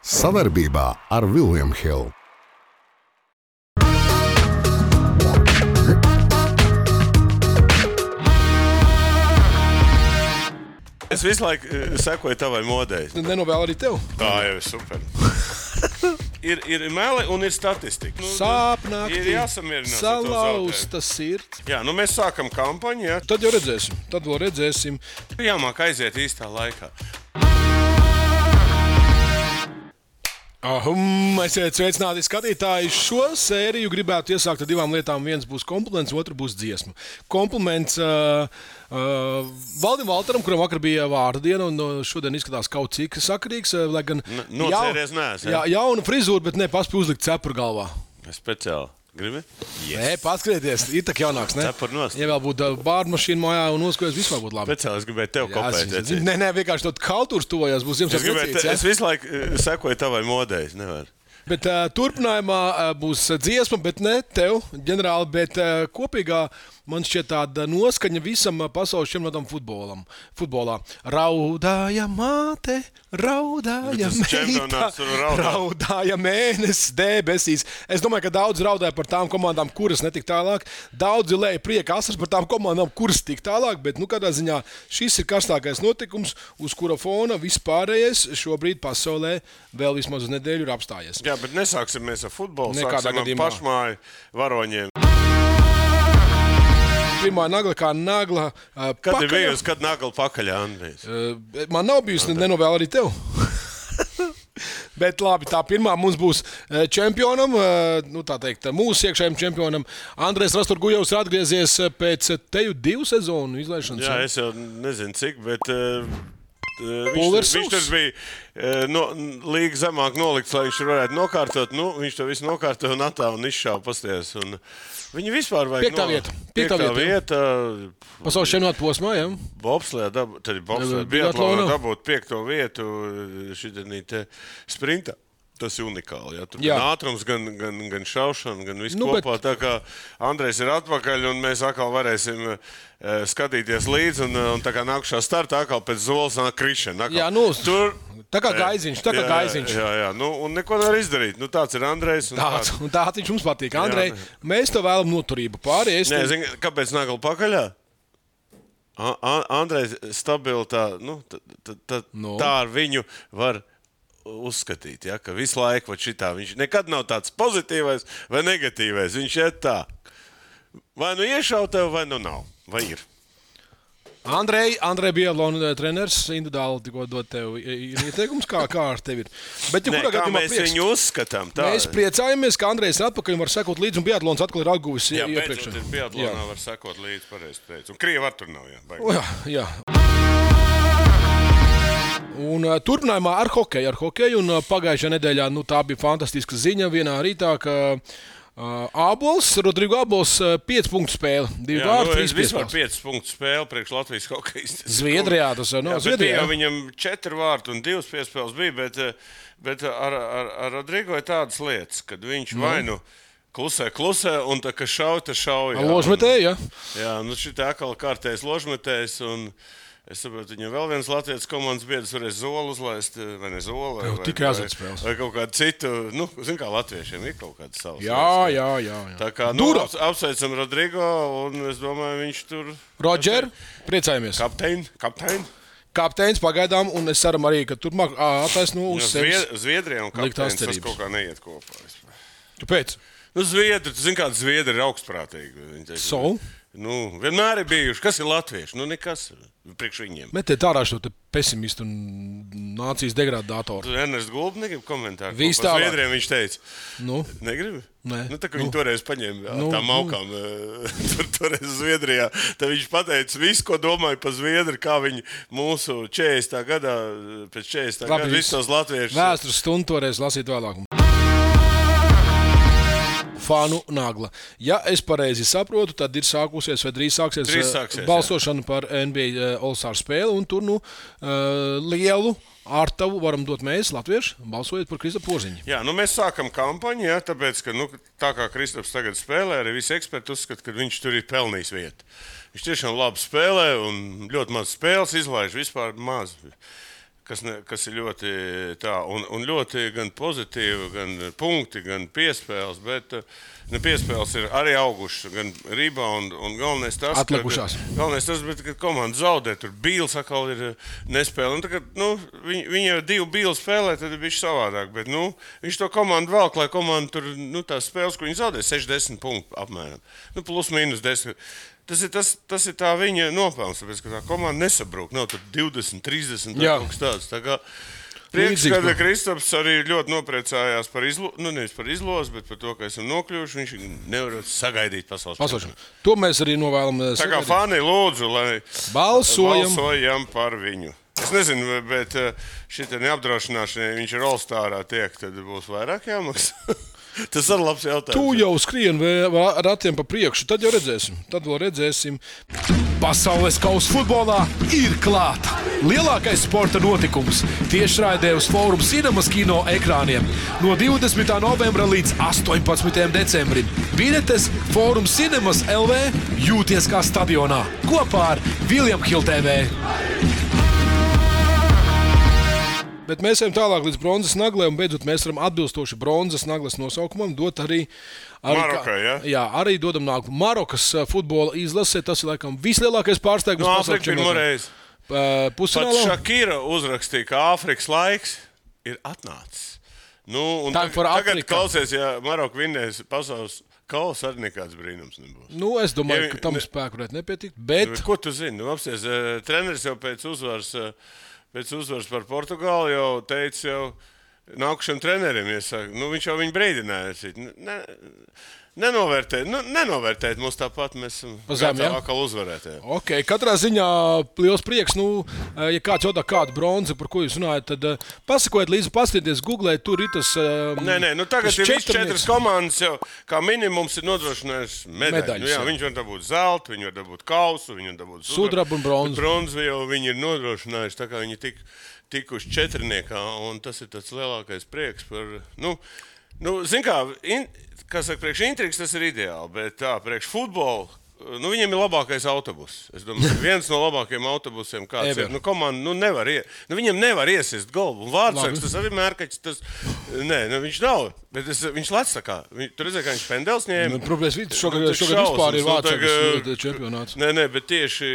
Savarbībā ar William Hill. Es visu laiku sekoju tavai modei. Nenovēlu arī tev. Tā jau ir super. ir meli un ir statistika. Sāpnākti, ir jāsamierinās salauzta sirds. Jā, mēs sākam kampaņu, jā. Tad jau redzēsim, tad vēl redzēsim. Jāmāk aiziet īstā laikā. Esiet sveicināti skatītāji. Šo sēriju gribētu iesākt ar divām lietām. Viens būs kompliments, otrs būs dziesma. Kompliments Valdim Valteram, kuram vakar bija vārda diena, un šodien izskatās kaut cik sakarīgs. Lai gan nocēries neesmu. Jauna frizūra, bet nepaspēj uzlikt cepuru galvā. Speciāli. Gribi? Yes. Nē, paskaties, ir tā jaunāks, ne? Cepur nost. Ja vēl būtu bārdu mašīna mājā un noskojas, vispār būtu labi. Speciāli es gribēju tev kopēt. Nē, vienkārši tot kaltūrs tuvojās, būs Ziemassvētku vecīts. Es visu laiku sekoju tavai modei, nevar. Bet turpinājumā būs dziesma, bet ne tev, ģenerāli, bet kopīgā man šķiet tāda noskaņa visam pasaules čempionātam futbolā. Raudāja māte, raudāja meita, raudāja mēnesis debesīs. Es domāju, ka daudz raudāja par tām komandām, kuras netik tālāk. Daudzi lēja prieka asars par tām komandām, kuras tik tālāk, bet kādā ziņā šis ir karstākais notikums, uz kura fona vispārējais šobrīd pasaulē vēl vismaz uz nedēļu ir apstājies. Jā, bet nesāksim mēs ar futbolu, nekādā sāksim ar pašmāju varoņiem. Pirmā nagla kā nagla Kad ir bijusi, kad nagla pakaļā, Andrijs? Man nav bijusi, nenovēlu arī tev. Bet labi, tā pirmā mums būs čempionam, tā teikt, mūsu iekšējiem čempionam. Andrejs Rasturgujovs ir atgriezies pēc teju 2 sezonu izlaišanas. Jā, es jau nezinu cik, bet viņš tur bija līga zemāk nolikts, lai viņš varētu nokārtot. Viņš to visu nokārtoja un atā un izšāva pasties. Viņi vispār vajag Piektā vieta. Pasaules čempionāta posmā, jā. Bobslējā, biatlonā dabūt 5. vietu šitā sprintā. Tas ir unikāli. Ja? Tur gan ātrums, gan šaušana, gan viss kopā. Tā kā Andrejs ir atpakaļ un mēs atkal varēsim skatīties līdzi. Un tā kā nākušā startā atkal pēc zolas nāk krišana. Jā, tā kā gaiziņš. Jā. Un neko nevar izdarīt. Tāds ir Andrejs. Tāds viņš mums patīk. Andrej, mēs tev vēlam noturību pāri. Kāpēc nagla pakaļā? Andrejs stabili tā ar viņu var uzskatīt, ja, ka visu laiku viņš nekad nav tāds pozitīvais vai negatīvais. Viņš ir tā. Vai nu iešauj tev, vai nu nav. Vai ir? Andrej biatlona treneris individuāli tikko dod tev ieteikums, kā ar tevi ir. Bet, kā mēs viņu uzskatām? Tā. Mēs priecājamies, ka Andrejs ir atpakaļ un var sekot līdzi, un biatlons atkal ir atguvis iepriekš. Jā, biatlonā var sekot līdzi, pareizi teicu. Un Krieva ar tur nav, jā. Un turpinājumā ar hokeju, un pagājušajā nedēļā tā bija fantastiska ziņa vienā rītā, ka Rodrigo Abols 5 punktu spēle, 2 vārdi, 3 piespēles. 5 punktu spēle priekš Latvijas hokeja. Zviedrijā tas ir. Zviedrijā viņam 4 vārdi un 2 piespēles bija, bet ar Rodrigo ir tādas lietas, kad viņš vai nu klusē, un tā, ka šauj. Ložmetēji, jā. Jā, šitā atkal kārtējs ložmetējs, un es saprotu, viņam vēl viens Latvijas komandas biedrs varēs zolu uzlaist, vai ne zolu, vai kaut kādu citu, zin kā latviešiem ir kaut kāda savas. Jā. Tā kā, apsveicam Rodrigo, un es domāju, viņš tur... Roger, priecājamies. Kapteinis pagaidām, un es ceram arī, ka turpmāk attaisno uz sevis. Zviedrijā un kapteinis tas kaut kā neiet kopā. Kāpēc? Zviedri, tu zini, kāda Zviedri ir augstprātīgi. Vienmēr ir bijuši. Kas ir latvieši? Nekas priekš viņiem. Metiet ārā šo pesimistu un nācijas degradātoru. Tu Ernests Gulbs negrib komentāru? Viss tālāk. Zviedriem viņš teica. Negribi? Nē. Tā kā viņi toreiz paņēma tām aukām toreiz Zviedrijā, tad viņš pateica visu, ko domāja par Zviedri, kā viņi mūsu 40. gadā, pēc 40. gada visus tos latviešus. Vēstures stundu toreiz lasīt vēlāk. Fanu nagla. Ja es pareizi saprotu, tad ir sākusies vai drīz sāksies balsošana par NBA All-Star spēli, un tur lielu ārtavu varam dot mēs, latvieši, balsojot par Kristapu Porziņu. Jā, mēs sākam kampaņu, tāpēc, ka tā kā Kristaps tagad spēlē, arī visi eksperti uzskata, ka viņš tur ir pelnījis vietu. Viņš tiešām labi spēlē un ļoti maz spēles izlaiž, vispār maz. kas ir ļoti tā, un ļoti gan pozitīvi, gan punkti, gan piespēles, bet piespēles ir arī augušas, gan rebound, un galvenais tas, ka komanda zaudē, tur Bīls atkal ir nespēle, un tagad, viņi jau 2 Bīli spēlē, tad ir bišķi savādāk, bet, viņš to komandu velk, lai komanda tur, tās spēles, ko viņi zaudē, 60 punktu apmēram, plus mīnus 10. Tas ir tā viņa nopelns, tāpēc, ka tā komanda nesabrūk. Nav tur 20, 30, kaut kas tāds. Tā kā prieks, ka Kristaps arī ļoti nopriecājās par nevis par izlozi, bet par to, ka esam nokļuvuši. Viņš nevar sagaidīt pasaules čempionu. To mēs arī novēlam. Tā kā fani lūdzu, lai balsojam par viņu. Es nezinu, bet šitā neapdrošināšanai viņš ir All-Starā tiek, tad būs vairāk jāmaksā. Tas ir labs jautājums. Tu jau skrien ratiem pa priekšu, tad jau redzēsim. Tad vēl redzēsim. Pasaules kausa futbolā ir klāta. Lielākais sporta notikums tiešraidē uz Forum Cinemas kino ekrāniem no 20. novembra līdz 18. decembrim. Biļetes Forum Cinemas LV jūties kā stadionā kopā ar William Hill TV. Bet mēs ejam tālāk līdz bronzas naglai, un beidzot mēs varam atbilstoši bronzas naglas nosaukumam dot arī Marokai, ja? Jā, arī dodam nākumu. Marokas futbola izlase, tas ir laikam vislielākais pārsteigums pasaules čempionātā. Pusfinālā. Pat Šakira uzrakstīja, ka Āfrikas laiks ir atnācis. Tagad klausies, ja Maroka vinnēs pasaules kausa, arī nekāds brīnums nebūs. Es domāju, ka tam spēku varētu nepietikt, bet... Ko tu zini? Apsties, treneris jau pēc uzvaras par Portugāli jau teica, nākušiem treneriem iesaka, viņš jau viņu brīdināja. Nenovērtēt mums tāpat, mēs esam atkal uzvarētāji. Ok, katrā ziņā liels prieks. Ja kāds jautā kādu bronzi, par ko jūs runājat, tad pasakojiet līdzi, paskatieties, googlēt, tur ir tas... Tagad ir viss 4 komandas jau, kā minimums ir nodrošinājuši medaļu. Viņš var dabūt zeltu, viņi var dabūt kausu, viņi var dabūt sudrabu un bronzu. Bronzu jau viņi ir nodrošinājuši, tā kā viņi tikuši 4, un tas ir tāds lielākais prieks par... Zin kā saka, priekš intrigas tas ir ideāli, bet tā, priekš futbolu, viņiem ir labākais autobus. Es domāju, viens no labākajiem autobusiem kāds ir. Komanda, viņiem nevar iesist golbu. Un Vārtsargs, tas arī mērkaķis, viņš nav, bet viņš lec tā kā. Tu redzēji, kā viņš pendels ņēma. Problēmas šogad vispār ir Vārtsargs čempionāts. Bet tieši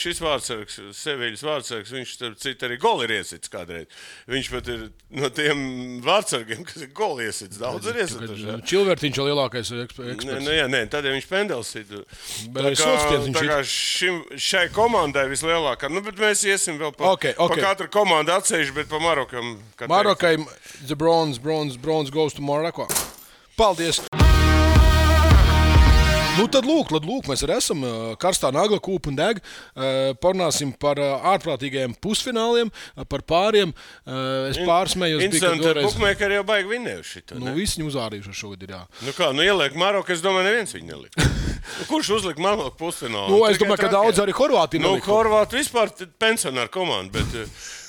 šis Vārtsargs, Seviļas Vārtsargs, viņš cita arī goli ir iesits kādreiz. Viņš pat ir no tiem Vārtsargiem, kas ir goli iesits. Daudz ir iesits. Čilvertiņš jau lielākais eksperts. Tad viņš pendels ir. Tā kā šai komandai vislielākā, bet mēs iesim vēl pa katru komandu atsevišķi, bet pa Marokam. Marokai, the bronze goes to Morocco. Paldies! Tad lūk, mēs arī esam karstā nagla kūpa un deg. Parunāsim par ārprātīgajiem pusfināliem, par pāriem. Es pārsmējos. Interesanti, bukmēkari jau baigi vinnējuši šitā. Visi viņu uzvārījuši šogad ir, jā. Ieliek Maroku, es domāju, neviens viņu nelika. Kurš uzlika Maroku pusfinālu? Es domāju, ka daudz arī Horvāti nelika. Horvāti vispār pensionāru komandu,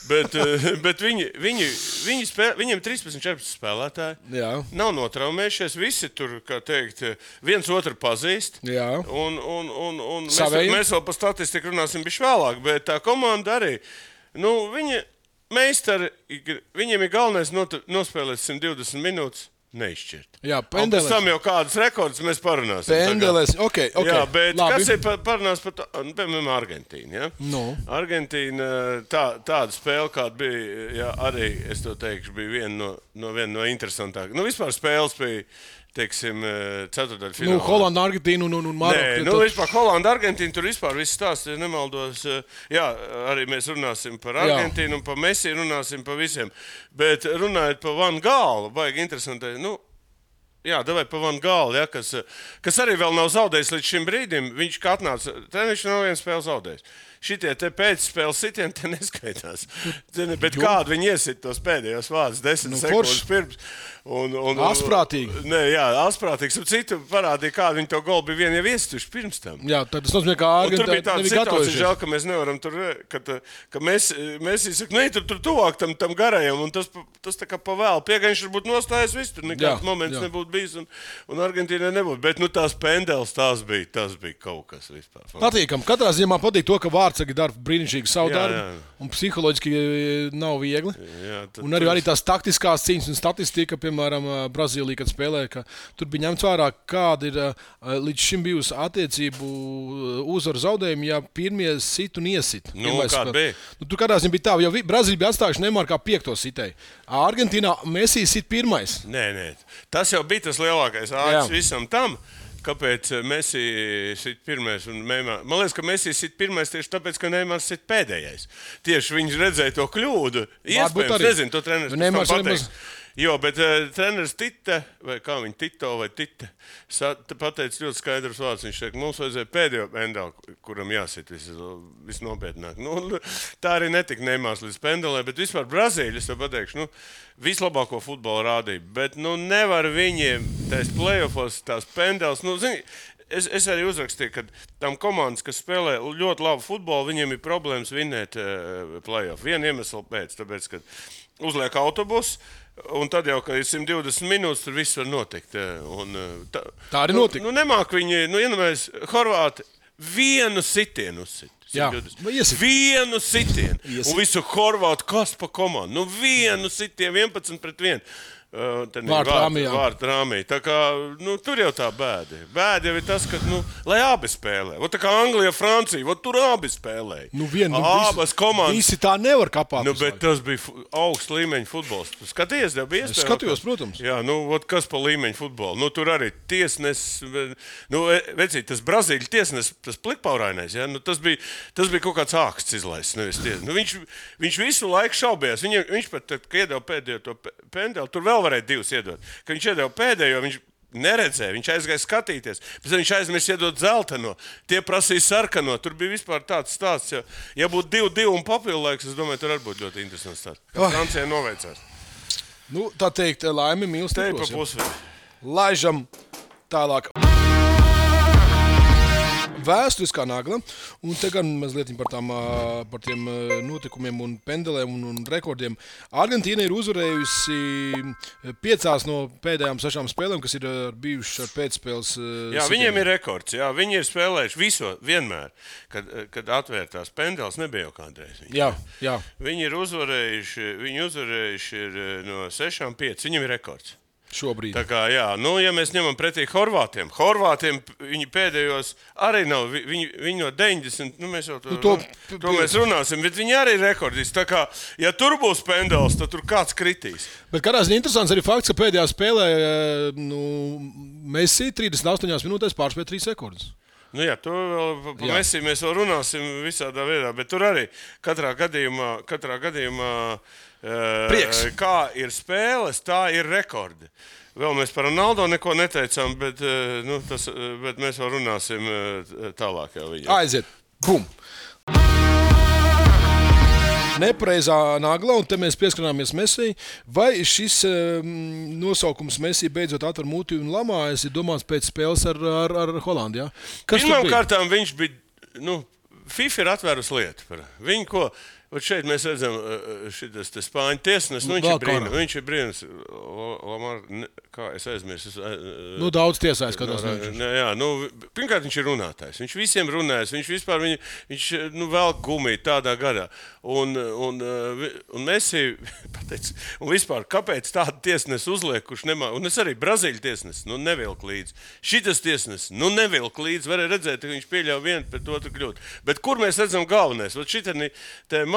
bet viņiem 13-14 spēlētāji. Jā. Nav notraumējušies, visi tur, kā teikt, viens otru pazīst. Jā. Un mēs vēl par statistiku runāsim bišķi vēlāk, bet tā komanda arī, viņi meistari, viņiem ir galvenais nospēlēt 120 minūtes. Neizšķirt. Jā, pendeles. Pēc tam jau kādas rekords mēs parunāsim. Pendeles, ok. Jā, bet labi. Kas ir parunās par piemēram, Argentīnu, ja? Argentīna, tāda spēle, kāda bija, arī, es to teikšu, bija viena no interesantākām. Vispār spēles bija, teiksim, ceturtdaļfinālā. Holanda, Argentīna un Maroka. Vispār Holanda, Argentīna, tur vispār viss stāsts, ja nemaldos. Jā, arī mēs runāsim par Argentīnu un par Messi, runāsim par visiem. Bet runājot par Van Gālu, baigi interesanti, davai pa Van Gālu, ja, kas arī vēl nav zaudējis līdz šim brīdim. Viņš kā atnāca, viņš nav vienu spēli zaudējis. Šitie te pēcspēles sitieni te neskaitās. Bet kādu viņi iesit tos pēdējos vārdus 10 sekundes pirms. Asprātīgi. Asprātīgs. Citu parādīja, kādu viņi to golu bija vien jau iestuši pirms tam. Jā, tad tas nozīmē, ka Argentīna nebija gatavojušies. Tur bija tāda situācija, žēl, ka mēs nevaram tur, ka mēs izsaka, tur tuvāk tam garajam, un tas tā kā pa vēlu. Piegaņš varbūt nostājas viss, tur nekāds moments nebūtu bijis, un Argentīnai nebūtu. Bet tās pendeles, tās bija kaut kas vispār. Patīkam. Katrā ziņā patīk to, ka vārtsargi dara brīnišķīgi savu darbu, un psiholoģiski nav viegli. Un arī tās taktiskās cīņas un statistika, piemēram, Brazīlija, kad spēlē, ka tur bija ņemts vērā, kāda ir līdz šim bijusi attiecību uzvaru zaudējumi, ja pirmie sit un iesit. Kāda bija? Tur kādā ziņā bija tā, jo Brazīlija bija atstājuši Neymaru kā 5. sitēju. Argentīnā Messi sit 1. Nē. Tas jau bija tas lielākais āķis visam tam. Kāpēc Messi sit 1. un Neymar? Man liekas, ka Messi sit 1. tieši tāpēc, ka Neymars sit pēdējais. Tieši viņš redzēja to kļūdu. Iespējams, nezinu, to treneris pateiks. Jo, bet treneris Tite, vai kā viņa Tito vai Tite, pateica ļoti skaidrs vārds. Viņš teica, mums vajadzēja pēdējo pendeli, kuram jāsit visnopietnāk. Tā arī netika Neymars līdz pendelē, bet vispār Brazīļi, es to pateikšu, vislabāko futbolu rādīja. Bet nevar viņiem tās playoffos, tās pendeles, Es arī uzrakstīju, ka tam komandas, kas spēlē ļoti labu futbolu, viņiem ir problēmas vinnēt playoff. Vienu iemeslu pēc, tāpēc, ka uzliek autobusu, un tad jau, ka ir 120 minūtes, tur viss var notikt. Tā arī notika. Nemāk viņi, iedomājies, Horvāti vienu sitienu uzsit. Vienu sitienu. Un visu Horvātu kas pa komandu. Vienu sitienu 11-1. Vārtu rāmī. Tā kā, tur jau tā bēda. Bēda jau ir tas, ka, lai abi spēlē. Tā kā Anglija, Francija, tur abi spēlē. Abas komandas. Visi tā nevar kapāt. Bet tas bija augsts līmeņa futbols. Skaties, tev bija iespēja? Skatījos, protams. Jā, kas pa līmeņa futbolu? Tur arī tiesnes, vecīt, tas Brazīļu tiesnes, tas plikpaurainais, ja? Tas bija kaut kāds āksts izlaists, nevis tiesnes. Viņš visu laiku šaubījās. Viņš pat, kad iedeva pēdējo to pendeli, tur vēl varēja 2 iedot. Kad viņš iedeva pēdējo, viņš neredzēja, viņš aizgāja skatīties. Pēc tam viņš aizmirst iedot zelteno. Tie prasīja sarkano. Tur bija vispār tāds stāsts. Ja būtu 2-2 un papildu laiks, es domāju, tur arī būtu ļoti interesants stāsts. Kā Francijai noveicās. Tā teikt, laimi mīl stipros. Te pa pusvedi. Laižam tālāk. Vēsturiskā nagla, un te gan mazliet par tiem notikumiem un pendelēm un rekordiem. Argentīna ir uzvarējusi 5 no pēdējām 6 spēlēm, kas ir bijušas ar pēcspēles. Jā, viņiem ir rekords. Jā, viņi ir spēlējuši vienmēr, kad atvērtās pendeles, nebija jau kādreiz. Jā. Viņi ir uzvarējuši no 6-5. Viņiem ir rekords. Šobrīd. Tā kā, ja mēs ņemam pretī Horvātiem viņi pēdējos arī nav, viņi no 90, mēs jau to mēs runāsim, bet viņi arī ir rekordisti. Tā kā, ja tur būs pendels, tad tur kāds kritīs. Bet kādās ir interesants arī fakts, ka pēdējā spēlē Messi 38 minūtēs pārspēja 3 rekordus. To vēl pa Messi mēs vēl runāsim visādā veidā, bet tur arī katrā gadījumā prieks. Kā ir spēles, tā ir rekordi. Vēl mēs par Ronaldo neko neteicām, bet mēs vēl runāsim tālāk jau viņam. Aiziet. Bum! Nepareizā nagla, un te mēs pieskarāmies Messi. Vai šis nosaukums Messi beidzot atver muti un lamājas, ir domāts pēc spēles ar Holandiju? Pirmām kārtām viņš bija, FIFA ir atvērusi lietu par viņu, ko... Šeit mēs redzam, šitas Spāņu tiesnes, viņš ir brīnums. Kā es aizmirsu? Daudz tiesājas, kādās pirmkārt, viņš ir runātājs. Viņš visiem runājas. Viņš vēl gumiju tādā gadā. Un Messi pateica, un vispār, kāpēc tādu tiesnes uzliek, kurš nemā... Un es arī Brazīļu tiesnes, nevilk līdzi. Šitas tiesnes, nevilk līdzi. Varēja redzēt, ka viņš pieļauj vienu pret otru kļūt. Bet kur mēs redzam galvenais?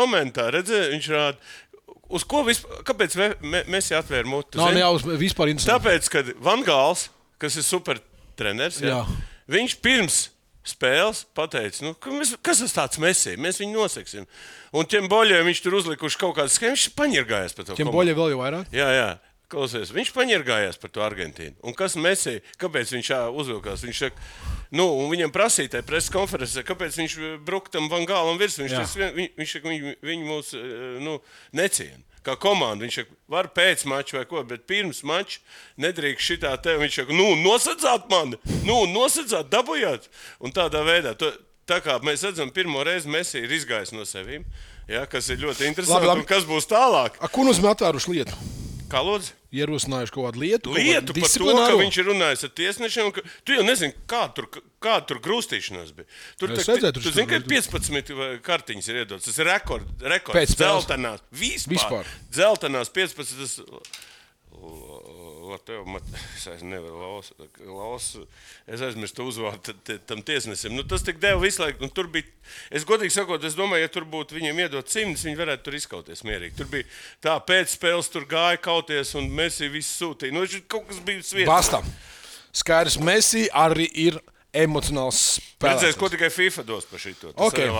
Momentā, redzēju, viņš rāda, uz ko vispār, kāpēc Messi atvēra muti? Vispār interesanti. Tāpēc, kad Van Gals, kas ir super treneris, viņš pirms spēles pateica, kas tas tāds Messi, mēs viņu noseksim. Un tiem boļiem viņš tur uzlikuši kaut kādas schēmas, viņš paņirgājās par to. Tiem boļiem vēl jau vairāk? Jā. Klausies, viņš paņirgājās par to Argentīnu. Un kas Messi, kāpēc viņš uzvilkās? Viņš saka, un viņam prasīja tajā preses konferencē, kāpēc viņš bruka tam Van Gālam virsū. Viņš saka, viņi mūs neciena. Kā komanda, viņš saka, var pēc mača vai ko, bet pirms mača nedrīkst šitā te. Viņš saka, nosadzāt mani, nosadzāt, dabujāt. Un tādā veidā, tā kā mēs redzam, pirmo reizi Messi ir izgājis no sevīm, kas ir ļoti interesanti. Un kas būs tālāk? Ko nozīmē atvēruši lietu? Kā lūdzu? Ierosinājuši kaut kādu lietu Par to, ka viņš ir runājis ar tiesnešiem. Tu jau nezini, kā tur grūstīšanās bija. Tur zini, ka 15 kartiņas ir iedotas. Tas ir rekords. Dzeltenās. Vispār. Dzeltenās 15. Es nevaru es aizmirstu uzvārdu tam tiesnesim. Tas tik deva visu laiku. Tur bija, es godīgi sakot, es domāju, ja tur būtu viņiem iedot 100, viņi varētu tur izkauties mierīgi. Tur bija tā pēc spēles, tur gāja kauties un Messi visu sūtīja. Kaut kas bija svietas. Bastam. Skaidrs, Messi arī ir emocionāls spēlētājs. Redzēs, ko tikai FIFA dos par šito. Okay.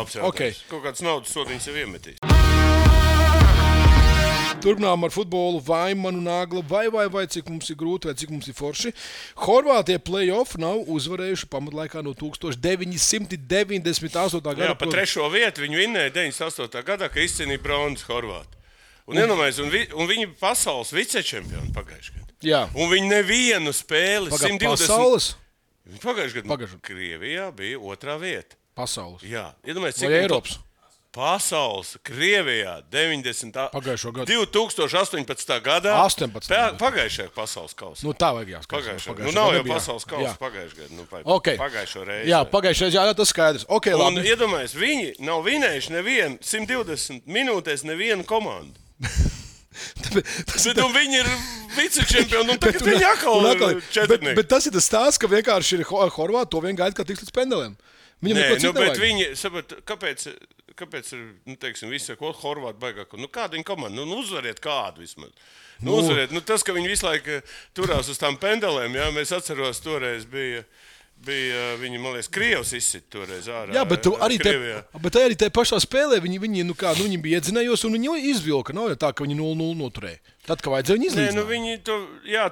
Kaut kāds naudas sodiņas jau iemetīs. Turpinām ar futbolu, vai manu nagla, vai cik mums ir grūti, vai cik mums ir forši. Horvātie play-off nav uzvarējuši pamatlaikā no 1998. gada. Jā, pa 3. vietu viņi vinnēja 98. gadā, ka izcīnīja bronzas Horvāti. Un viņi pasaules vicečempioni pagājušajā gadā. Jā. Un viņi nevienu spēli 120. Pasaules? Pagājušajā gadā Krievijā bija 2. vieta. Pasaules? Jā. Vai Eiropas? Pasaules, Krievijā, 2018. gadā. 18. Pagājušajā pasaules kausā. Tā vajag jāskatās. Nav jau pasaules kausa pagājušajā gadā. Pagājušo reizi. Jā, pagājušajā reizē, tas skaidrs. Okay, un iedomājies, viņi nav vinējuši nevienu 120 minūtēs nevienu komandu. Viņi ir vicečempioni, un tagad viņi atkal četrnieki. Bet tas ir tas stāsts, ka vienkārši ir Horvāti to vien gaida, ka tiks līdz pendelēm. Bet viņi, kāpēc ir, teiksim, visi saka, Horvāti baigāk, kāda viņa komanda, uzvariet kādu vismaz. Uzvariet, tas, ka viņi visu laiku turās uz tām pendelēm, jā, mēs atceros, toreiz bija viņi, man liekas, Krievs izsit toreiz ārā. Jā, bet arī te pašā spēlē viņi bija iedzinējos un viņi izvilka, nav jau tā, ka viņi 0-0 noturēja. Tad, kad vajadzēja viņi izlīdzināt.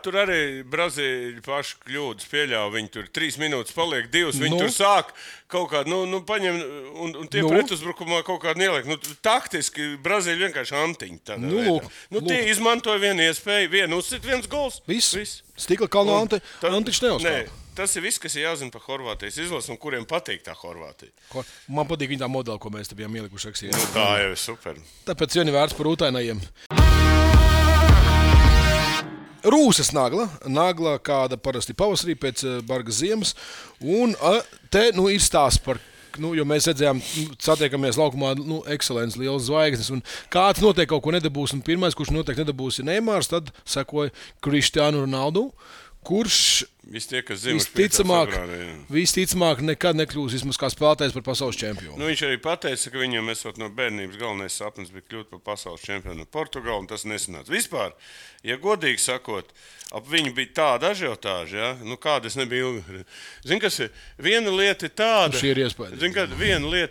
Tur arī Brazīļi paši kļūdas pieļāva. Viņi tur 3 minūtes paliek, 2. Viņi tur sāk kaut kādu, paņem un tie pretuzbrukumā kaut kādu ieliek. Taktiski Brazīļi vienkārši antiņi. Tie izmantoja vienu iespēju, vienu uzsit, viens gols. Viss. Stikla kalna antiņš neuzskāpa. Tas ir viss, kas ir jāzina par Horvātijas izlasi un kuriem patīk tā Horvātija. Man patīk viņa tā modela, ko mēs te bijām ielikuši rakstīja. Tā jau ir super. Tāpēc vieni vērts par ūtainajiem. Rūsas nagla, kāda parasti pavasarī pēc bargas ziemas. Un te ir stāsts par, jo mēs redzējām, satiekamies laukumā, ekscelents, liels zvaigznes. Un kāds noteikti kaut ko nedabūs, un pirmais, kurš noteikti nedabūs, ir Neimārs, tad sekoja Cristiano Ronaldo, kurš visticamāk nekad nekļūs vismaz kā spēlētājs par pasaules čempionu. Viņš arī pateica, ka viņam esot no bērnības galvenais sapnis bija kļūt par pasaules čempionu Portugāli, un tas nesanāca. Vispār, ja godīgi sakot, ap viņu bija tāda ažiotāža, ja? Kāda es nebiju ilgi. Zini, kas ir? Viena lieta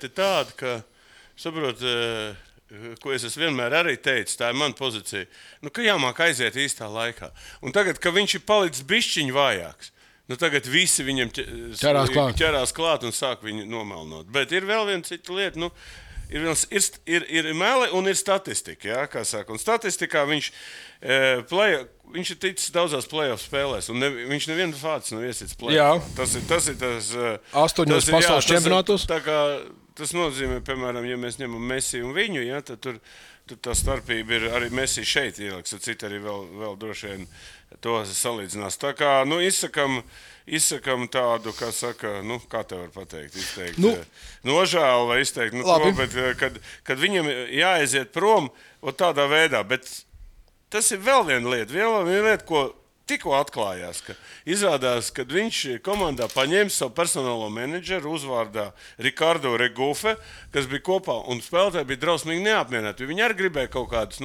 ir tāda, ka, saprot, ko es vienmēr arī teicu, tā ir mana pozīcija, ka jāmāk aiziet īstā laikā. Un tagad, ka viņš ir palicis bišķiņ vājāks, tagad visi viņam ķerās klāt un sāk viņu nomelnot. Bet ir vēl viena cita lieta, ir meli un ir statistika, jā, kā saka. Un statistikā viņš ir ticis daudzās play-off spēlēs, un viņš nevienu fācis nav iesits play-off. Tas ir tas 8 pasaules čempionātos. Tas nozīmē, piemēram, ja mēs ņemam Messi un viņu, ja, tad tur tā starpība ir arī Messi šeit ieliks, tad citi arī vēl droši vien to salīdzinās. Tā kā, izsakam tādu, kā saka, kā te var pateikt, izteikt nožēlu vai izteikt, bet kad viņam jāaiziet prom tādā veidā, bet tas ir vēl viena lieta, ko tikko atklājās, ka izrādās, kad viņš komandā paņēma savu personālo menedžeru uzvārdā Ricardo Regufe, kas bija kopā, un spēlētāji bija drausmīgi neapmierināti. Viņi arī gribēja kaut kādus,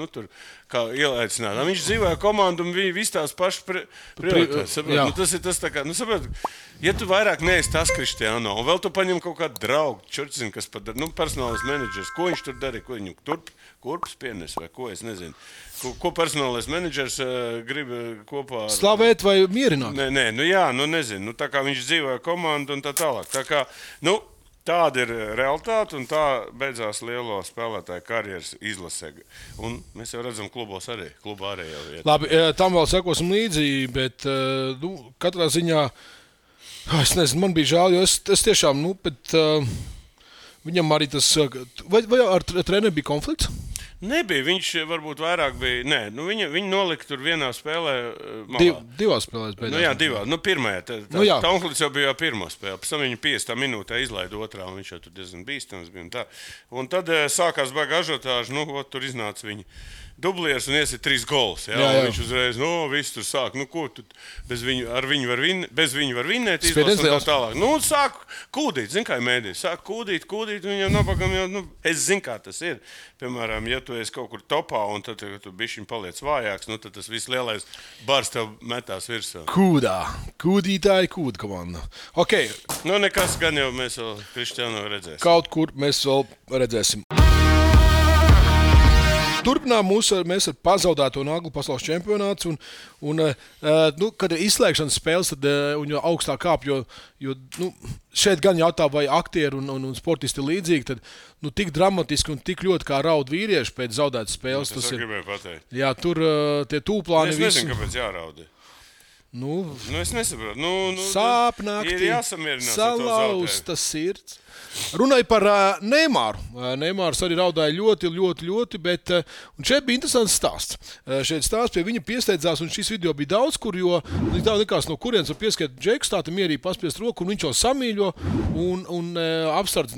kā ielaicināt. Viņš dzīvoja komandu un viņi visi tās pašas prioritātes. Tas ir tas tā kā, saprot, ja tu vairāk neesi tas Cristiano, un vēl tu paņem kaut kādu draugu, čurcinu, kas padara, personālais menedžers, ko viņš tur darīja, ko viņu kurpus pienes vai ko, es nezinu. Ko personālais menedžers grib kopā ar... Slavēt vai mierināt? Nezinu. Tā kā viņš dzīvoja komandu un tā tālāk. Tā kā, tāda ir realitāte un tā beidzās lielo spēlētāju karjeras izlasē. Un mēs jau redzam klubos arī. Klubā arī jau vieta. Labi, tam vēl sekosim līdzi, bet katrā ziņā, es nezinu, man bija žēl, jo es tiešām, bet viņam arī tas... Vai ar treneri bija konflikts? Nebija, viņš varbūt vairāk bija. Nē, viņi nolika tur vienā spēlē. Divās spēlēs beigās. Jā, divās. Pirmajā. Taunklīds jau bija pirmā spēle. Pēc tam viņu 50 minūtē izlaida otrā, un viņš jau tur diezgan bīstams bija. Un tad sākās baga ažotāža, tur iznāca viņi. Dublieris un iesit 3 gols. Jā. Viņš uzreiz, viss tur sāk. Ko tu bez viņu var vinnēt, izlasīt un tā tālāk. Sāk kūdīt, zin kā mēdī. Sāk kūdīt, viņam nabagam jau, es zinu, kā tas ir. Piemēram, ja tu esi kaut kur topā un tad tu bišķiņ paliec vājāks, tad tas viss lielais bars tev metās virsū. Kūdītāji kūda komanda. Ok. Nekas gan jau mēs vēl Kristiāno redzēsim. Kaut kur mēs vēl redzēsim. Turpinām mēs ar pazaudēto naglu pasaules čempionāts, kad ir izslēgšanas spēles, tad un jau augstāk kāp, jo šeit gan jautā, vai aktieri un sportisti līdzīgi, tad tik dramatiski un tik ļoti kā raud vīrieši pēc zaudētas spēles. Tas gribēju pateikt. Jā, tur tie tūplāni visi. Es nezinu, kāpēc jāraudi. Es nesaprotu. Sāpnākti, ir jāsamierinās salauzta sirds. Runāja par Neimāru. Neimārs arī raudāja ļoti, ļoti, ļoti, bet šeit bija interesants stāsts. Šeit stāsts pie viņa piesteidzās, un šis video bija daudz, kur, jo nekās no kurienes var pieskiet Džeks, tā mierīgi paspiest roku, un viņš jau samīļo un apsardz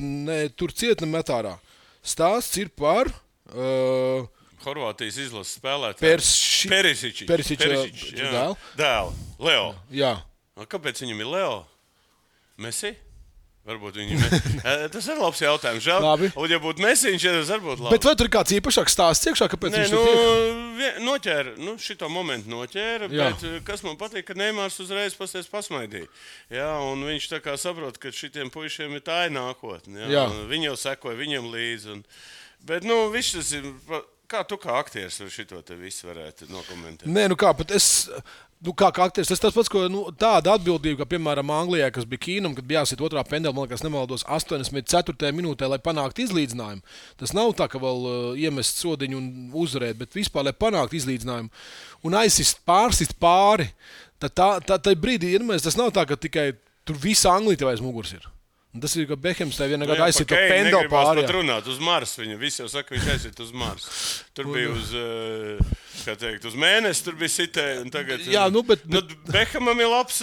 tur ciet ne metārā. Stāsts ir par... Horvātijas izlases spēlētāji. Perisiča dēlu. Leo. Jā. Kāpēc viņam ir Leo? Messi? Varbūt tas ir labs jautājums. Žēl. Un ja būtu Messi, viņš arī būtu labs. Bet vai tur ir kāds īpašāks stāsts iekšā, kāpēc viņš tiek? Noķēra. Šito momentu noķēra, bet kas man patīk, ka Neimārs uzreiz pasmaidīja. Jā, un viņš tā kā saprot, ka šitiem puišiem ir tā nākotne. Viņi jau sekoja viņam līdzi. Bet, viss tas ir... Kā tu kā aktieris šito te visu varētu nokomentēt? Nē, pat es... kā aktieris, tas pats, ko tāda atbildība, kā piemēram Anglijā, kas bija Kīnam, kad bija jāsit otrā pendela, man liekas, nemaldos 84. minūtē, lai panāktu izlīdzinājumu. Tas nav tā, ka vēl iemest sodiņu un uzvarēt, bet vispār, lai panāktu izlīdzinājumu un pārsist pāri, tad brīdī, tas nav tā, ka tikai tur visa Anglija tev aiz muguras ir. Tas ir, ka Behems tā vienā gadā aizsit to pendelu pāri. Pat runāt uz Marsu. Viņa visi jau saka, viņš aizsit uz Marsu. Tur bija uz mēnesi, tur bija sitē. Tagad, Behamam ir labs...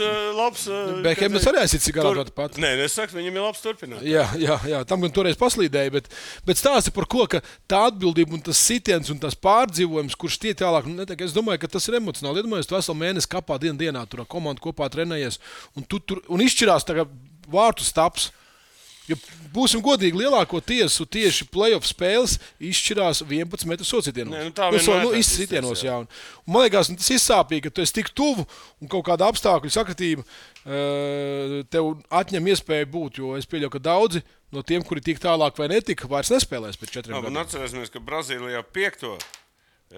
Behems arī aizsit cigarātu pat. Nē, es saku, viņam ir labs turpināt. Jā, tam gan toreiz paslīdēja, bet stāsti par ko, ka tā atbildība un tas sitiens un tas pārdzīvojums, kurš tie tālāk, es domāju, ka tas ir emocionāli. Iedomājies, tu veselu mēnesi kapā dienā, tur komanda kopā trenējies un izšķirās tagad vārtu staps. Jo būsim godīgi, lielāko tiesu tieši play-off spēles izšķirās 11 metru societienos. Izsitienos, jā. Un man liekas, tas izsāpīgi, ka tu esi tik tuvu un kaut kāda apstākļu sakritība tev atņem iespēju būt, jo es pieļauju, ka daudzi no tiem, kuri tik tālāk vai netika, vairs nespēlēs pēc 4 gadiem. Un atcerēsimies, ka Brazīlijā 5.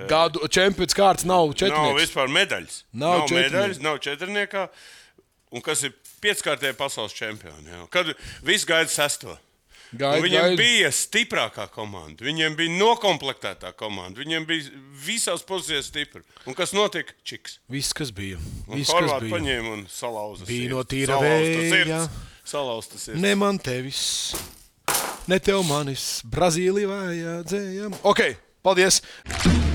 gadu čempions kārts nav četrnieks. Nav vispār medaļas. Nav medaļas, nav četrniekā. Un kas ir 5-kārtējā pasaules čempioni. Kad viss gaida 6. Viņiem bija stiprākā komanda. Viņiem bija nokomplektētā komanda. Viņiem bija visās pozīcijās stipri. Un kas notika? Čiks. Viss, kas bija. Horvāti paņēma un salauza sirds. Bija no tīra vēja. Salauzta sirds. Ne man tevis, ne tev manis. Brazīlija vajadzēja. Ok, paldies.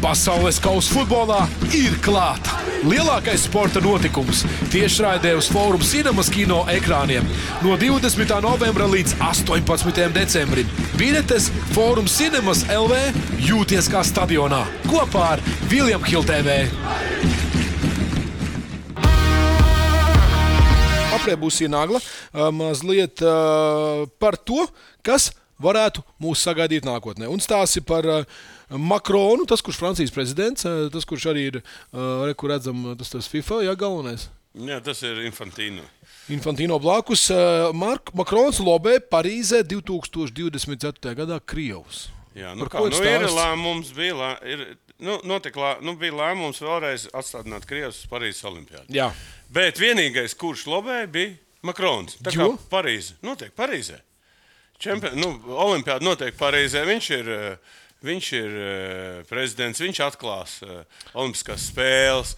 Pasaules kausa futbolā ir klāta. Lielākais sporta notikums tiešraidē uz Forum Cinemas kino ekrāniem no 20. novembra līdz 18. decembrim. Biļetes Forum Cinemas LV jūties kā stadionā kopā ar William Hill TV. Aprē būs ienāgla mazliet par to, kas varētu mūs sagaidīt nākotnē. Un stāsti par Makronu, tas, kurš Francijas prezidents, tas, kurš arī ir, kur redzam, tas FIFA, galvenais. Jā, tas ir Infantino. Infantino blakus. Makrons lobē Parīzē 2024. gadā Krievus. Jā, ir lēmums, bija lēmums vēlreiz atstādināt Krievus uz Parīzes olimpiādu. Jā. Bet vienīgais, kurš lobē, bija Makrons. Tā kā Parīze notiek Parīzē. Olimpiāda notiek Parīzē. Viņš ir prezidents, viņš atklās olimpiskās spēles.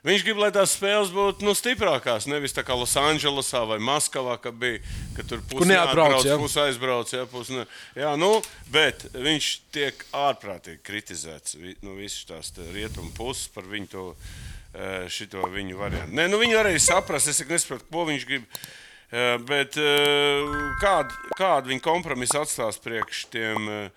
Viņš grib, lai tās spēles būtu stiprākās, nevis tā kā Losandželosā vai Maskavā, ka tur pusi neatbrauc, pusi aizbrauc. Jā, bet viņš tiek ārprātīgi kritizēts visas tās rietumu puses par viņu šito viņu variantu. Nē, viņu arī saprast, es nesaprotu, ko viņš grib, bet kādu viņa kompromisu atstās priekš tiem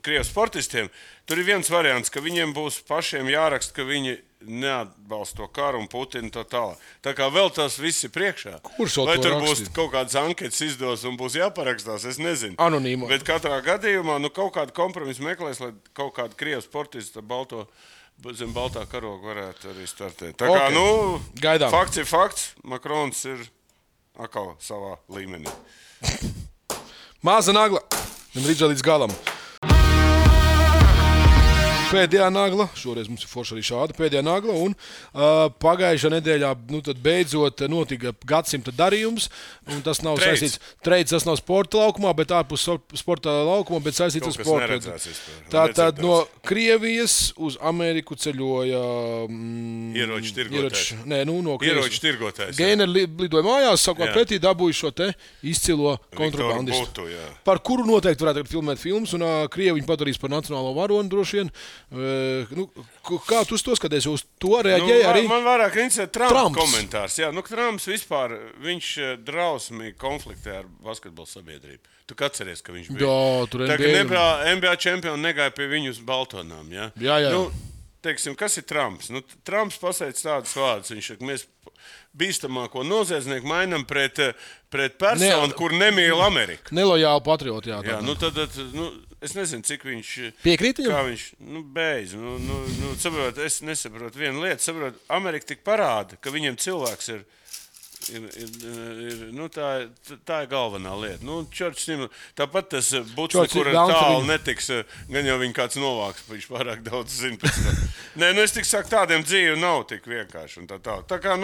Krievijas sportistiem. Tur ir viens variants, ka viņiem būs pašiem jāraksta, ka viņi neatbalsta to karu un Putinu tā tālāk. Tā kā vēl tas viss ir priekšā. Vai tur būs kaut kādas anketas izdos un būs jāparakstās, es nezinu. Anonīmo. Bet katrā gadījumā kaut kādu kompromisu meklēs, lai kaut kādu Krievijas sportistu zem baltā karoga varētu arī startēt. Tā kā, gaidām. Fakts ir fakts, Makrons ir atkal savā līmenī. Maza nagla. Gandrīz līdz galam. Pēdējā nagla, šoreiz mums ir forši arī šāda pēdējā nagla, un pagājušā nedēļā tad beidzot notika gadsimta darījums, un tas nav saistīts, tas nav sporta laukumā, bet ārpus sporta laukumā, bet saistīts ar sportu. Tātad no Krievijas uz Ameriku ceļoja ieroču tirgotājs. No ieroču tirgotājs. Gaineri lidoja mājās, savukārt pretī dabūja šo te izcilo kontrabandistu. Par kuru noteikti varētu filmēt filmas, un Krievi viņu padarīs par nacionālo varoni droši vien. Kā tu to skaties? Uz to reaģēja arī? Man vairāk interesē Trumps komentārs. Jā, Trumps vispār, viņš drausmīgi konfliktē ar basketbola sabiedrību. Tu atceries, ka viņš bija? Jā, tur NBA čempioni negāja pie viņu uz Baltonām. Ja? Jā. Teiksim, kas ir Trumps? Trumps pasaic tādus vārdus. Viņš saka, mēs bīstamāko noziedznieku mainam pret personu, kur nemīl Ameriku. Nelojāli patrioti, jā. Tad, es nezinu, cik viņš... Piekrīt viņam? Kā viņš, beidz. Saprot, es nesaprotu vienu lietu. Saprot, Amerika tik parāda, ka viņiem cilvēks ir tā ir galvenā lieta. Tāpat tas bučs, kur tālu netiks, gan jau viņa kāds novāks, viņš pārāk daudz zina pēc tam. Nē, es tik saku, tādiem dzīvi nav tik vienkārši. Tā kā,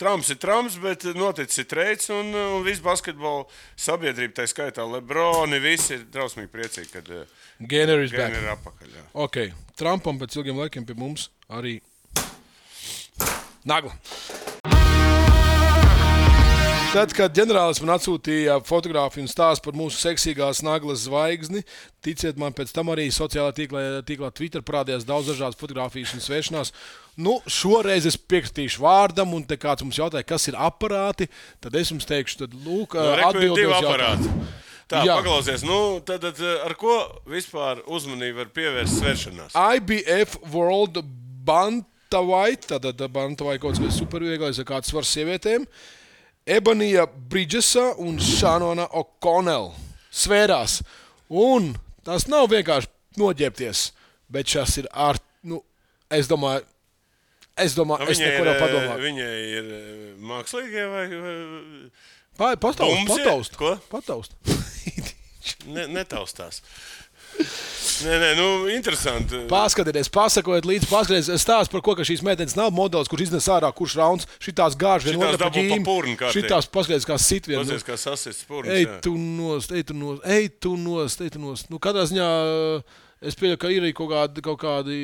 Trumps ir Trumps, bet noticis ir treids, un viss basketbola sabiedrība, tā skaitā Lebroni, visi ir drausmīgi priecīgi, kad Gaineri ir apakaļ. Jā. Ok, Trumpam pēc ilgiem laikiem pie mums arī nagla. Tad, kad ģenerālis man atsūtīja fotogrāfiju un stāstu par mūsu seksīgās naglas zvaigzni, ticiet man, pēc tam arī sociālā tīklā Twitter parādījās daudz dažādas fotogrāfijas un svēršanās. Šoreiz es piekritīšu vārdam, un te kāds mums jautāja, kas ir aparāti, tad es jums teikšu, tad lūk, atbildot uz jautājumu. Tā, paklausies, tad ar ko vispār uzmanību var pievērst svēršanās? IBF World Bantamweight, tad Bantamweight kaut kas supervieglais, ar kāds svars sievietēm. Ebonija Bridgesa un Shanona O'Connell svērās. Un tas nav vienkārši noģērbties, bet šas ir es domāju, es neko nav padomāt. Viņai ir mākslīgie vai... Pataust. Netaustās. Nē, interesanti. Paskatieties, pasakojiet līdzi, paskatieties stāst par ko, ka šīs meitenes nav modelis, kurš iznes ārā, kurš rauns, šitās gāž vien otra pa ģīm, šitās paskatieties kā sit vien. Paskatieties kā sasists purns, ej tu nost. Katrā ziņā es pieļauju, ka ir arī kaut kādi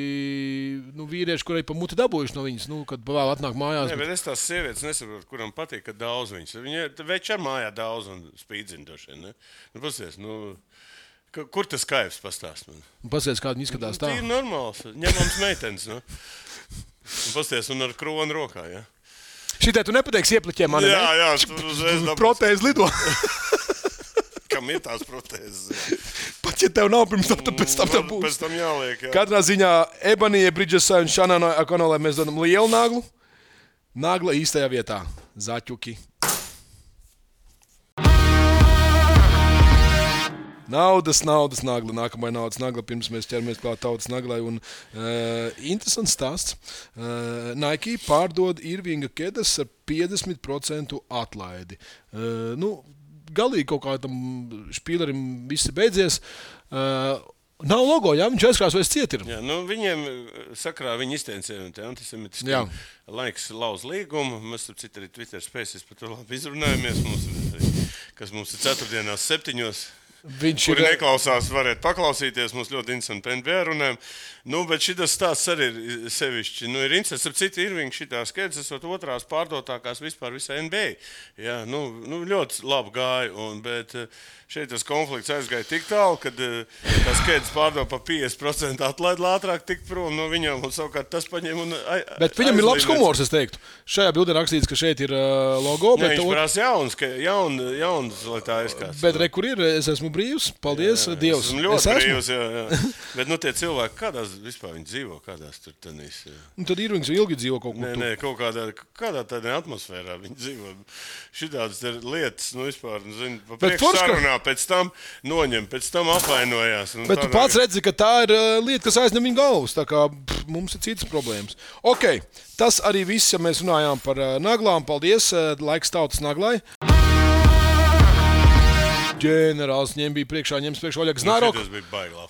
vīrieši, kuri pa muti dabūjuši no viņas, kad vēl atnāk mājās. Nē, bet es tās sievietes nesaprotu, kuram patīk, ka daudz viņas. Viņi veči ar mājā daudz un spīdzina došie, ne? Paskatieties, kur tas kaivs pastāst man? Paskatieties, kā viņi izskatās tā. Ir normāls, ņemams meitenes, Paskatieties, un ar kronu rokā, ja? Šitai tu nepateiksi iepliķiem mani, ne? Jā, tur uzreiz dabūs. Protēzi lido. Kam ir tās protēzes? Pat ja tev nav pirms tam, tad pēc tam tev būs. Pēc tam jāliek, jā. Katrā ziņā Ebonija Bridgesai un Shanonai O'Connellai mēs dodam lielu naglu. Nagla īstajā vietā. Zaķuki. Naudas nagla. Nākamā naudas nagla, pirms mēs ķeramies klāt tautas naglai. Un interesants stāsts. Nike pārdod Irvinga kedas ar 50% atlaidi. Galīgi kaut kādam špīlerim viss ir beidzies. Nav logo, jā, viņš aizkrāsojas ciet ir. Jā, viņiem sakrā viņa izteicējumi te antisemitiski. Laiks lauz līgumu. Mēs ar citu arī Twitter spēsies par to labi izrunājamies. Kas mums ir 4 dienās 7. kuri neklausās, varētu paklausīties. Mums ļoti interesanti NBA runājam. Bet šitas stāsts arī ir sevišķi. Ir interesants, ap citu Irvinga šitā skaidrs, esot otrās pārdotākās vispār visā NBA. Jā, ļoti labi gāja, bet šeit tas konflikts aizgāja tik tālu, kad tas skaidrs pārdod pa 50% atlaid ātrāk tikt prom no viņām, un savukārt tas paņem un Bet viņam ir labs humors, es teiktu. Šajā bildē rakstīts, ka šeit ir logo. Jā, viņš prasa jauns, lai tā izskatās. Bet kur ir? Es esmu brīvs. Paldies, Dievs. Esmu ļoti brīvs, jā. Bet tie cilvēki, kādās vispār viņi dzīvo, kādās tur tenīs? Tad Irvings ilgi dzīvo kaut kur. Nē, kaut kādā tādā atmosfērā viņi dzīvo. Šitādas lietas, vispār, pa priekšu sarunā, pēc tam noņem, pēc tam apvainojās. Bet tu pats redzi, ka tā ir lieta, kas aizņem viņa galvas, tā kā mums ir citas problēmas. Ok, tas arī viss, ja mēs runājām par naglām. Paldies, laiks tautas naglai. Ģenerālis ņems priekšā Oļegs Znaroks.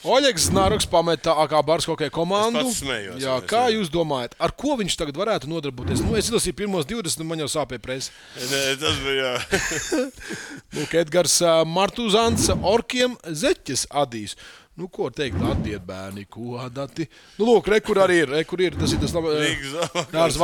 Oļegs Znaroks pameta AK Bars hokeja komandu. Es pats smējos. Jā, kā jūs domājat, ar ko viņš tagad varētu nodarboties? Es izlasīju pirmos 20, man jau sāpēja presa. Nē, tas bija, jā. Edgars Martuzants Orkiem Zeķes adīs. Ko teikt, atdiet bērni, ko dati? Lūk, kur arī ir. Tas ir tas labs.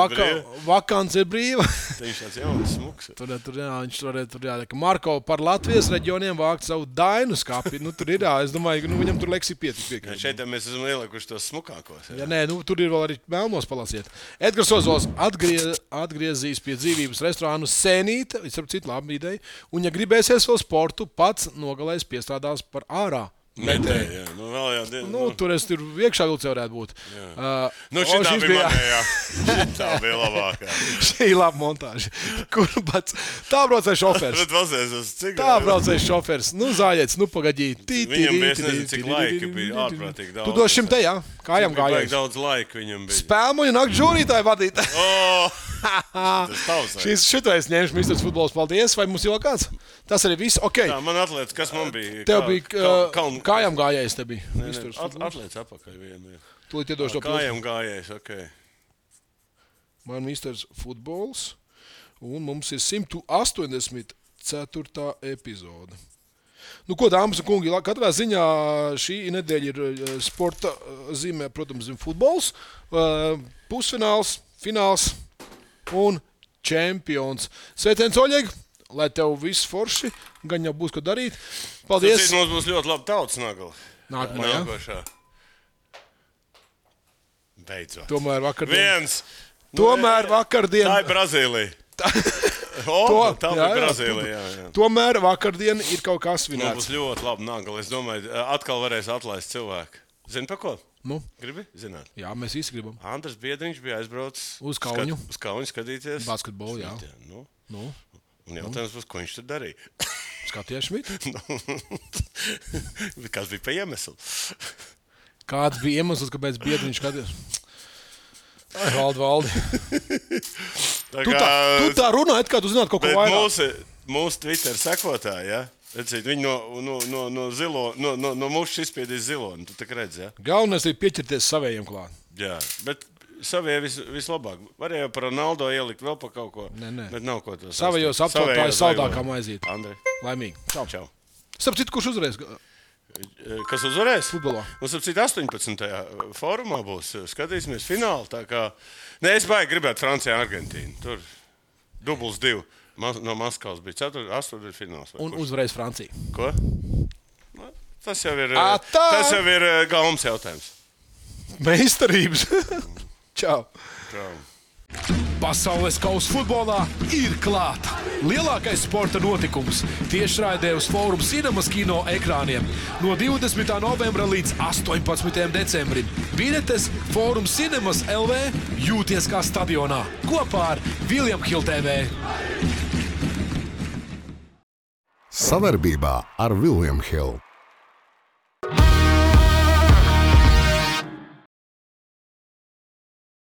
Vakants ir brīva. Viņš tāds jauns smuks. Viņš tur ka Marko par Latvijas reģioniem vākt savu dainu skapi. Tur ir, es domāju, viņam tur leksī pietiek. Šeit mēs esam ielikuši tos smukākos. Jā, nē, tur ir vēl arī melnos palasiet. Edgars Ozols atgriezīs pie dzīvības restorānu Sēnīte, visam citu labu ideju, un ja gribēsies vēl sportu, pats nogalēs piestrādās par ārā. Metēji, tur es tur iekšā vilcē varētu būt. Šitā bija manējā. Šitā bija labākā. Šī ir laba montāža. Tā braucēja šofers. Tā braucēja šofers. Zāļiets, pagaidīt. Viņam bija, es nezinu, cik laika bija ārprātīgi daudz. Tu dos šim te, jā? Kājām gājējis. Daudz laika viņam bija. Spēlmoņu nakt žūrītāju vadīt. Tas šitais ņemšu Misters Futbols. Paldies. Vai mums jau kāds? Tas arī viss. Okay. Tā, man atliec, kas man bija? Tev bija kājām gājējis, te bija. Atliec apakaļ vienu. Tūlīt iedošu to kājām gājējis, ok. Man Misters Futbols. Un mums ir 184. epizode. Ko, dāmas un kungi, katrā ziņā šī nedēļa ir sporta zīmē, protams, futbols, pusfināls, fināls un čempions. Sveiciens, Oļeg, lai tev viss forši, gan jau būs, ko darīt. Paldies. Mums būs ļoti labi tautas nagla. Nākamā. Beidzot. Tomēr vakardien. Tā ir Brazīlija. Tā bija Brazīlija, jā. Tomēr vakardien ir kaut kas svinēts. Mums būs ļoti labi nagla. Es domāju, atkal varēs atlaist cilvēku. Zini pa ko? Gribi zināt? Jā, mēs visi gribam. Andris Biedriņš bija aizbraucis uz Kauņu. Uz Kauņu skatīties. Basketbolu, jā. Un jautājums būs, ko viņš tur darīja? Skatījās Šmit? Kas bija pa iemeslu? Kāds bija iemesls, kāpēc Biedriņš skatījās? Valdi. Tu tā runā, kā tu zinātu kaut ko vairāk. Mūsu Twitter sekotāji, ja? Redzīt, viņi no mušas izspiedīs ziloni. Tu tā redzi, ja? Galvenais ir pieķerties savējiem klāt. Jā, bet savējie vislabāk. Varēja par Ronaldo ielikt vēl pa kaut ko. Nē. Bet nav ko to savējos aptautājus saldākā maizīt. Andri. Laimīgi. Čau. Starp citu, kurš uzvarēs? Kas uzvarēs? Futbolā. Mums ap citu 18. fórumā būs. Skatīsimies finālu. Tā kā... Nē, es baigi gribētu Francijā, Argentīnu. Tur dubls 2. No Maskavas bija 8. fināls. Un uzvarēs Francija. Ko? Tas jau ir galvas jautājums. Meistarības. Čau. Čau. Pasaules kausa futbolā ir klāta. Lielākais sporta notikums tiešraidē uz Fórum Cinemas kino ekrāniem no 20. novembra līdz 18. decembrim. Biļetes Fórum Cinemas LV jūties kā stadionā kopā ar William Hill TV. Savarbībā ar William Hill.